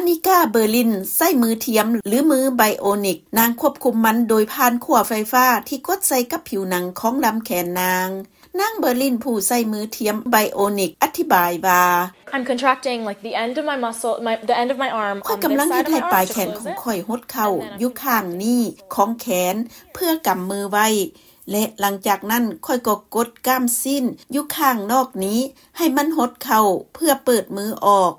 ນິກາ ເບີລິນ ໃຊ້ມືທຽມ ຫຼື ມືໄບໂອນິກ. ນາງຄວບຄຸມມັນໂດຍຜ່ານຂົວໄຟຟ້າທີ່ກົດໃສ່ກັບຜິວໜັງຂອງລຳແຂນນາງ. ນາງ ເບີລິນ ຜູ້ໃຊ້ມືທຽມໄບໂອນິກ ອະທິບາຍວ່າ, I'm contracting, like, the end of my muscle, my, the end of my arm. ຂ້ອຍກຳລັງເຮັດໃຫ້ປາຍແຂນຂອງຂ້ອຍຫົດເຂົ້າຢູ່ຂ້າງນີ້ຂອງແຂນ ເພື່ອກຳມືໄວ້ ແລະ ຫຼັງຈາກນັ້ນຂ້ອຍກໍກົດກ້າມຊີ້ນຢູ່ຂ້າງນອກນີ້ໃຫ້ມັນຫົດເຂົ້າເພື່ອເປີດມືອອກ.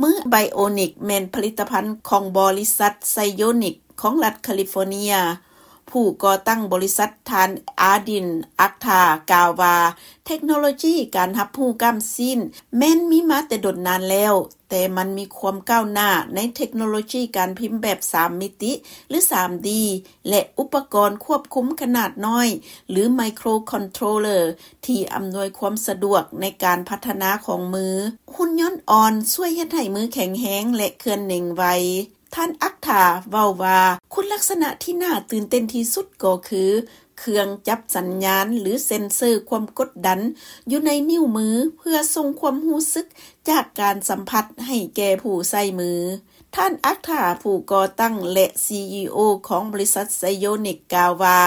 ມືໄບໂອນິກແມ່ນຜະລິດຕະພັນຂອງບໍລິສັດໄຊໂອນິກຂອງລັດຄາລິຟໍເນຍ. ຜູ້ກໍ່ຕັ້ງບໍລິສັດ ທ່ານ ອາດິນ ອັກທາ ກ່າວວ່າ ເທັກໂນໂລຈີການຮັບຮູ້ກ້າມຊີ້ນແມ່ນມີມາແຕ່ດົນນານແລ້ວ, ແຕ່ມັນມີຄວາມກ້າວໜ້າໃນເທັກໂນໂລຈີການພິມແບບສາມມິຕິ ຫຼື ສາມດີ ແລະ ອຸປະກອນຄວບຄຸມຂະໜາດນ້ອຍ ຫຼື ໄມໂຄຣຄອນໂທຣເລີ ທີ່ອຳນວຍຄວາມສະດວກໃນການພັດທະນາຂອງມື. ຫຸ່ນຍົນອ່ອນຊ່ວຍເຮັດໃຫ້ມືແຂງແຮງ ແລະ ເຄື່ອນເໜັງໄວ. ທ່ານ ອັກທາ ເວົ້າວ່າ ຄຸນລັກສະນະທີ່ໜ້າຕື່ນເຕັ້ນທີ່ສຸດກໍຄື ເຄື່ອງຈັບສັນຍານ ຫຼື ເຊັນເຊີຄວາມກົດດັນຢູ່ໃນນິ້ວມື ເພື່ອສົ່ງຄວາມຮູ້ສຶກຈາກການສຳຜັດໃຫ້ແກ່ຜູ້ໃຊ້ມື. ທ່ານ ອັກທາ ຜູ້ກໍ່ຕັ້ງ ແລະ ຊີອີໂອ ຂອງບໍລິສັດໄຊໂອນິກ ກ່າວວ່າ,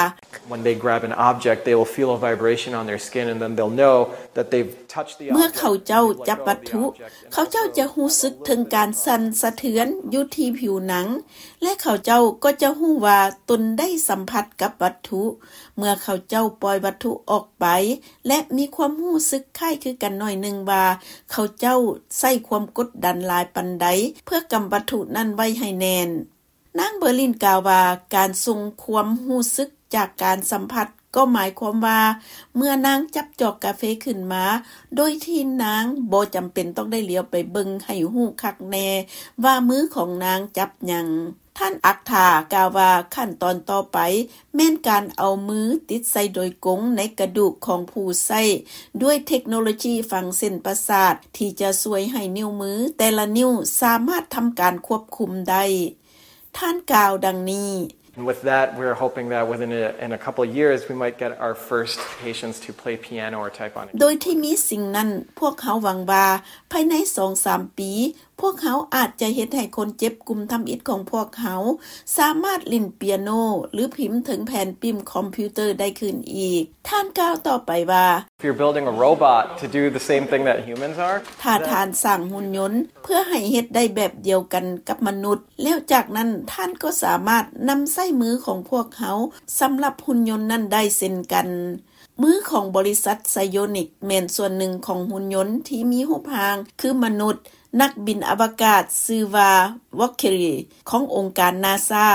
When they grab an object, they will feel a vibration on their skin, and then they'll know that they've touched the object, ເມື່ອເຂົາເຈົ້າຈັບວັດຖຸ, ເຂົາເຈົ້າຈະຮູ້ສຶກເຖິງການສັ່ນສະເທືອນຢູ່ທີ່ຜິວໜັງ ແລະ ເຂົາເຈົ້າກໍຈະຮູ້ວ່າຕົນໄດ້ສຳຜັດກັບວັດຖຸ. ເມື່ອເຂົາເຈົ້າປ່ອຍວັດຖຸອອກໄປ ແລະ ມີຄວາມຮູ້ສຶກຄ້າຍຄືກັນໜ້ອຍໜຶ່ງວ່າ ເຂົາເຈົ້າໃຊ້ຄວາມກົດດັນຫຼາຍປານໃດ ເພື່ອກຳວັດຖຸນັ້ນໄວ້ໃຫ້ແໜ້ນ. ນາງ ເບີລິນ ກ່າວວ່າ ການສົ່ງຄວາມຮູ້ສຶກຈາກການສຳຜັດ ກໍໝາຍຄວາມວ່າ ເມື່ອນາງຈັບຈອກກາເຟຂຶ້ນມາ ໂດຍທີ່ນາງບໍ່ຈຳເປັນຕ້ອງໄດ້ຫຼຽວໄປເບິ່ງໃຫ້ຮູ້ຄັກແນ່ວ່າມືຂອງນາງຈັບຫຍັງ. ທ່ານ ອັກທາ ກ່າວວ່າ ຂັ້ນຕອນຕໍ່ໄປແມ່ນການເອົາມືຕິດໃສ່ໂດຍກົງໃນກະດູກຂອງຜູ້ໃຊ້ ດ້ວຍເທັກໂນໂລຈີຝັງເສັ້ນປະສາດ ທີ່ຈະຊ່ວຍໃຫ້ນິ້ວມືແຕ່ລະນິ້ວສາມາດທຳການຄວບຄຸມໄດ້. ທ່ານກ່າວດັ່ງນີ້. And with that, we're hoping that within a, in a couple of years, we might get our first patients to play piano or type on a keyboard. ໂດຍທີ່ມີສິ່ງນັ້ນ, ພວກເຮົາຫວັງວ່າພາຍໃນສອງສາມປີ, ພວກເຮົາອາດຈະເຮັດໃຫ້ຄົນເຈັບກຸ່ມທຳອິດຂອງພວກເຮົາສາມາດຫຼິ້ນປຽໂນ ຫຼື ພິມເຖິງແຜ່ນປິ້ມຄອມພິວເຕີໄດ້ຄືນອີກ. ທ່ານກ່າວຕໍ່ໄປວ່າ, If you're building a robot to do the same thing that humans are, ຖ້າທ່ານສ້າງຫຸ່ນຍົນເພື່ອໃຫ້ເຮັດໄດ້ແບບດຽວກັນກັບມະນຸດ, ແລ້ວຈາກນັ້ນທ່ານກໍສາມາດນຳໃຊ້ມືຂອງພວກເຮົາສຳລັບຫຸ່ນຍົນນັ້ນໄດ້ເຊັ່ນກັນ. ມືຂອງບໍລິສັດໄຊໂອນິກແມ່ນສ່ວນໜຶ່ງຂອງຫຸ່ນຍົນທີ່ມີຮູບຮ່າງຄືມະນຸດ. ນັກບິນອະວະກາດຊື່ວ່າ ວອກເຄີຣີ ຂອງອົງການນາຊາ,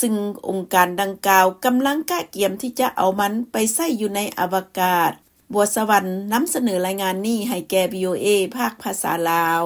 ຊຶ່ງອົງການດັ່ງກ່າວກຳລັງກະກຽມທີ່ຈະເອົາມັນໄປໃຊ້ຢູ່ໃນອະວະກາດ. ບົວສະຫວັນ ນຳສະເໜີລາຍງານນີ້ໃຫ້ແກ່ ວີໂອເອ ພາກພາສາລາວ.